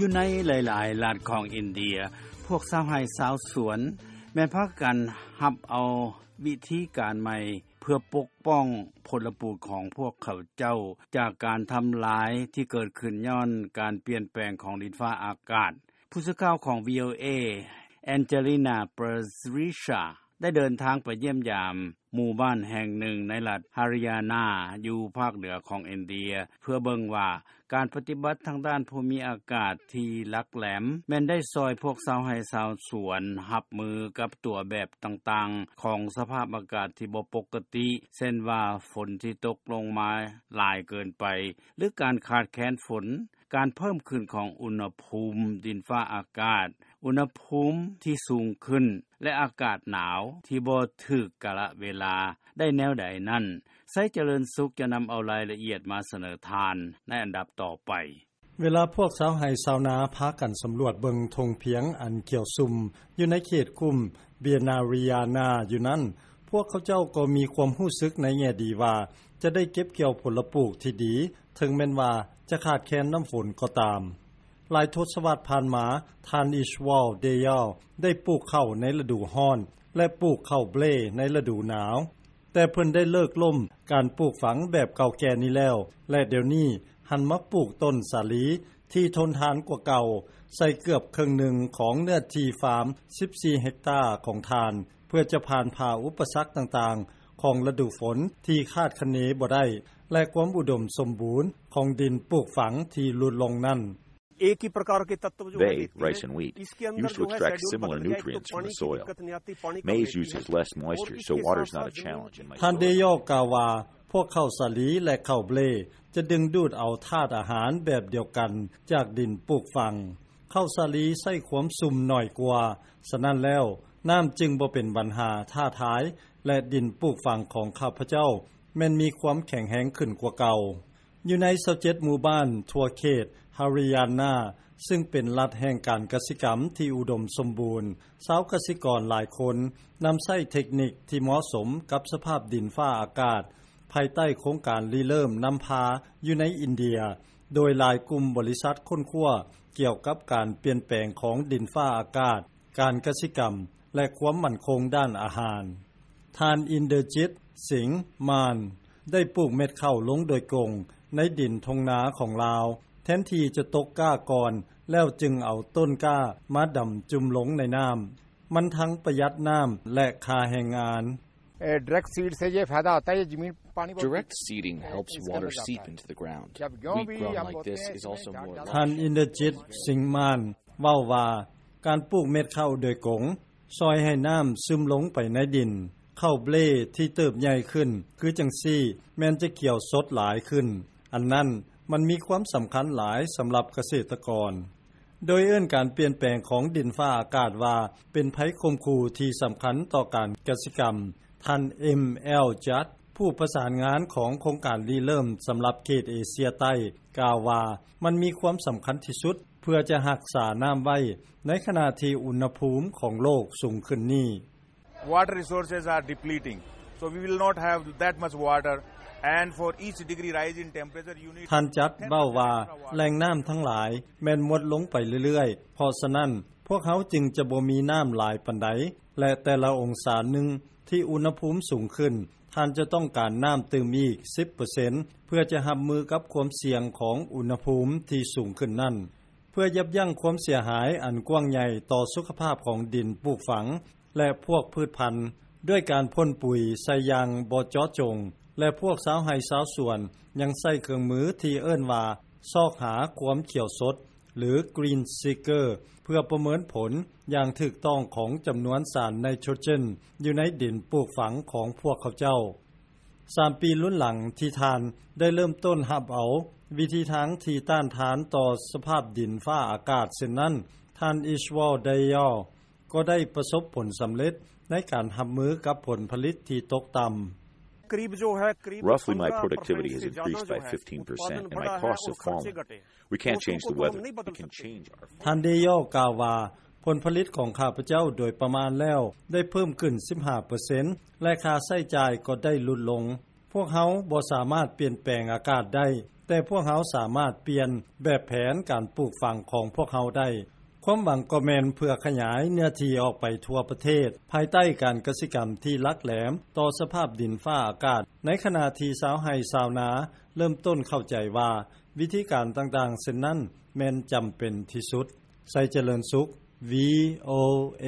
ຢູ່ໃນຫຼາຍໆລັດຂອງອິນເດຍ, ພວກຊາວໄຮ່ຊາວສວນແມ່ນພາກັນຮັບເອົາວິທີການໃໝ່ເພື່ອປົກປ້ອງຜົນລະປູກຂອງພວກເຂົາເຈົ້າຈາກການທຳລາຍທີ່ເກີດຂຶ້ນຍ້ອນການປ່ຽນແປງຂອງດິນຟ້າອາກາດ. ຜູ້ສື່ຂ່າວຂອງ ວີໂອເອ Angelina Parizia ໄດ້ເດີນທາງໄປຢ້ຽມຢາມໝູ່ບ້ານແຫ່ງໜຶ່ງໃນລັດ Haryana ຢູ່ພາກເໜືອຂອງອິນເດຍ ເພື່ອເບິ່ງວ່າການປະຕິບັດທາງດ້ານພູມີອາກາດທີ່ຫຼັກແຫຼມ ແມ່ນໄດ້ຊ່ອຍພວກຊາວໄຮ່ຊາວສວນຮັບມືກັບຕົວແບບຕ່າງໆຂອງສະພາບອາກາດທີ່ບໍ່ປົກກະຕິ ເຊັ່ນວ່າຝົນທີ່ຕົກລົງມາຫຼາຍເກີນໄປ ຫຼື ການຂາດແຄນຝົນ, ການເພີ່ມຂຶ້ນຂອງອຸນຫະພູມດິນຟ້າອາກາດ, ອຸນຫະພູມທີ່ສູງຂຶ້ນ ແລະ ອາກາດໜາວທີ່ບໍ່ຖືກກາລະເວລາໄດ້ແນວໃດນັ້ນ, ໄຊຈະເລີນສຸກຈະນຳເອົາລາຍລະອຽດມາສະເໜີທ່ານໃນອັນດັບຕໍ່ໄປ. ເວລາພວກຊາວໄຮ່ຊາວນາພາກັນສຳຫຼວດເບິ່ງທົ່ງພຽງອັນຂຽວຊຸ່ມຢູ່ໃນເຂດກຸ່ມ Binariana ຢູ່ນັ້ນ, ພວກເຂົາເຈົ້າກໍມີຄວາມຮູ້ສຶກໃນແງ່ດີວ່າຈະໄດ້ເກັບກ່ຽວຜົນລະປູກທີ່ດີ ເຖິງແມ່ນວ່າຈະຂາດແຄນນ້ຳຝົນກໍຕາມ. ຫຼາຍທົດສະວັດຜ່ານມາ, ທ່ານ Ishwal Dayal ໄດ້ປູກເຂົ້າໃນລະດູຮ້ອນ ແລະ ປູກເຂົ້າເບລໃນລະດູໜາວ, ແຕ່ເພິ່ນໄດ້ເລີກລົ້ມການປູກຝັງແບບເກົ່າແກ່ນີ້ແລ້ວ ແລະ ດຽວນີ້ຫັນມາປູກຕົ້ນສາລີທີ່ທົນທານກວ່າເກົ່າ ໃສ່ເກືອບເຄິ່ງໜຶ່ງຂອງເນື້ອທີ່ຟາມສິບສີ່ເຮັກຕາຂອງທ່ານ ເພື່ອຈະຜ່ານຜ່າອຸປະສັກຕ່າງໆຂອງລະດູຝົນທີ່ຄາດຄະເນບໍ່ໄດ້ ແລະ ຄວາມອຸດົມສົມບູນຂອງດິນປູກຝັງທີ່ຫຼຸດລົງນັ້ນ. Bai, rice and wheat, used to extract similar nutrients from the soil. Maize uses less moisture, so water's not a challenge in my soil. ທ່ານ Dayal ກ່າວວ່າ ພວກເຂົ້າສາລີ ແລະ ເຂົ້າເບລຈະດຶງດູດເອົາທາດອາຫານແບບດຽວກັນຈາກດິນປູກຝັງ. ເຂົ້າສາລີໃຊ້ຄວາມຊຸ່ມໜ້ອຍກວ່າ, ສະນັ້ນແລ້ວ ນ້ຳຈຶ່ງບໍ່ເປັນບັນຫາທ້າທາຍ ແລະ ດິນປູກຝັງຂອງຂ້າພະເຈົ້າແມ່ນມີຄວາມແຂງແຮງຂຶ້ນກວ່າເກົ່າ. ຢູ່ໃນຊາວເຈັດໝູ່ບ້ານທົ່ວເຂດ Haryana ຊຶ່ງເປັນລັດແຫ່ງການກະສິກຳທີ່ອຸດົມສົມບູນ, ຊາວກະສິກອນຫຼາຍຄົນນຳໃຊ້ເທັກນິກທີ່ເໝາະສົມກັບສະພາບດິນຟ້າອາກາດ ພາຍໃຕ້ໂຄງການລິເລີ່ມນຳພາຢູ່ໃນອິນເດຍ, ໂດຍຫຼາຍກຸ່ມບໍລິສັດຄົ້ນຄວ້າກ່ຽວກັບການປ່ຽນແປງຂອງດິນຟ້າອາກາດ, ການກະສິກຳ ແລະ ຄວາມໝັ້ນຄົງດ້ານອາຫານ. ທ່ານ Inderjit Singh Mann ໄດ້ປູກເມັດເຂົ້າລົງໂດຍກົງໃນດິນທົ່ງນາຂອງລາວ ແທນທີ່ຈະຕົກກ້າກ່ອນ ແລ້ວຈຶ່ງເອົາຕົ້ນກ້າມາດຳຈຸ່ມລົງໃນນ້ຳ. ມັນທັງປະຢັດນ້ຳ ແລະ ຄ່າແຮງງານ. A, direct seed से ये फायदा होता है, ये जमीन पानी बहुत Direct seeding helps water seep into the ground. जब गेहूं Wheat भी grown हम like बोते this हैं, is इसमें also झाड़ more ज्यादा ທ່ານ Inderjit Singh Mann ເວົ້າວ່າ ການປູກເມັດເຂົ້າໂດຍກົງຊ່ອຍໃຫ້ນ້ຳຊຶມລົງໄປໃນດິນ. ເຂົ້າເບລທີ່ເຕີບໃຫຍ່ຂຶ້ນຄືຈັ່ງຊີ້ ແມ່ນຈະຂຽວສົດຫຼາຍຂຶ້ນ. ອັນນັ້ນມັນມີຄວາມສຳຄັນຫຼາຍສຳລັບກະເສດຕະກອນ. ໂດຍເອີ້ນການປ່ຽນແປງຂອງດິນຟ້າອາກາດວ່າເປັນໄພຂົ່ມຂູ່ທີ່ສຳຄັນຕໍ່ການກະສິກຳ. ທ່ານ M L Judd ຜູ້ປະສານງານຂອງໂຄງການລິເລີ່ມສຳລັບເຂດເອເຊຍໃຕ້ ກ່າວວ່າ ມັນມີຄວາມສຳຄັນທີ່ສຸດເພື່ອຈະຮັກສານ້ຳໄວ້ໃນຂະນະທີ່ອຸນຫະພູມຂອງໂລກສູງຂຶ້ນນີ້. Water resources are depleting, so we will not have that much water, and for each degree rise in temperature, you need ທ່ານຈັດເວົ້າວ່າ ແຫຼ່ງນ້ຳທັງຫຼາຍແມ່ນໝົດລົງໄປເລື້ອຍໆ, ເພາະສະນັ້ນ ພວກເຮົາຈຶ່ງຈະບໍ່ມີນ້ຳຫຼາຍປານໃດ ແລະ ແຕ່ລະອົງສາໜຶ່ງທີ່ອຸນຫະພູມສູງຂຶ້ນ, ທ່ານຈະຕ້ອງການນ້ຳຕື່ມອີກສິບເປີເຊັນ ເພື່ອຈະຮັບມືກັບຄວາມສ່ຽງຂອງອຸນຫະພູມທີ່ສູງຂຶ້ນນັ້ນ. ເພື່ອຢັບຢັ້ງຄວາມເສຍຫາຍອັນກວ້າງໃຫຍ່ຕໍ່ສຸຂະພາບຂອງດິນປູກຝັງ ແລະ ພວກພືດພັນ ດ້ວຍການພົ່ນປຸຍໃສ່ຢ່າງບໍ່ເຈາະຈົງ ແລະ ພວກຊາວໄຮ່ຊາວສວນຍັງໃຊ້ເຄື່ອງມືທີ່ເອີ້ນວ່າ ຊອກຫາຄວາມຂຽວສົດ ຫຼື Green Seeker ເພື່ອປະເມີນຜົນຢ່າງຖືກຕ້ອງຂອງຈຳນວນສານໄນໂຕຣເຈນຢູ່ໃນດິນປູກຝັງຂອງພວກເຂົາເຈົ້າ. ສາມປີລຸນຫຼັງທີ່ທ່ານໄດ້ເລີ່ມຕົ້ນຮັບເອົາວິທີທາງທີ່ຕ້ານທານຕໍ່ສະພາບດິນຟ້າອາກາດເຊັ່ນນັ້ນ, ທ່ານ Ishwal Dayal ກໍໄດ້ປະສົບຜົນສຳເລັດໃນການຮັບມືກັບຜົນຜະລິດທີ່ຕົກຕ່ຳ. Roughly, my productivity has increased by fifteen percent and my costs have fallen. We can't change the weather. We can change our ທ່ານ Dayal ກ່າວວ່າ ຜົນຜະລິດຂອງຂ້າພະເຈົ້າໂດຍປະມານແລ້ວໄດ້ເພີ່ມຂຶ້ນສິບຫ້າເປີເຊັນ ແລະ ຄ່າໃຊ້ຈ່າຍກໍໄດ້ຫຼຸດລົງ. ພວກເຮົາບໍ່ສາມາດປ່ຽນແປງອາກາດໄດ້, ແຕ່ພວກເຮົາສາມາດປ່ຽນແບບແຜນການປູກຝັງຂອງພວກເຮົາໄດ້. ຄວາມຫວັງກໍແມ່ນເພື່ອຂະຫຍາຍເນື້ອທີ່ອອກໄປທົ່ວປະເທດ ພາຍໃຕ້ການກະສິກຳທີ່ຫຼັກແຫຼມຕໍ່ສະພາບດິນຟ້າອາກາດ, ໃນຂະນະທີ່ຊາວໄຮ່ຊາວນາເລີ່ມຕົ້ນເຂົ້າໃຈວ່າ ວິທີການຕ່າງໆເຊັ່ນນັ້ນແມ່ນຈຳເປັນທີ່ສຸດ. ໄຊຈະເລີນສຸກ ວີໂອເອ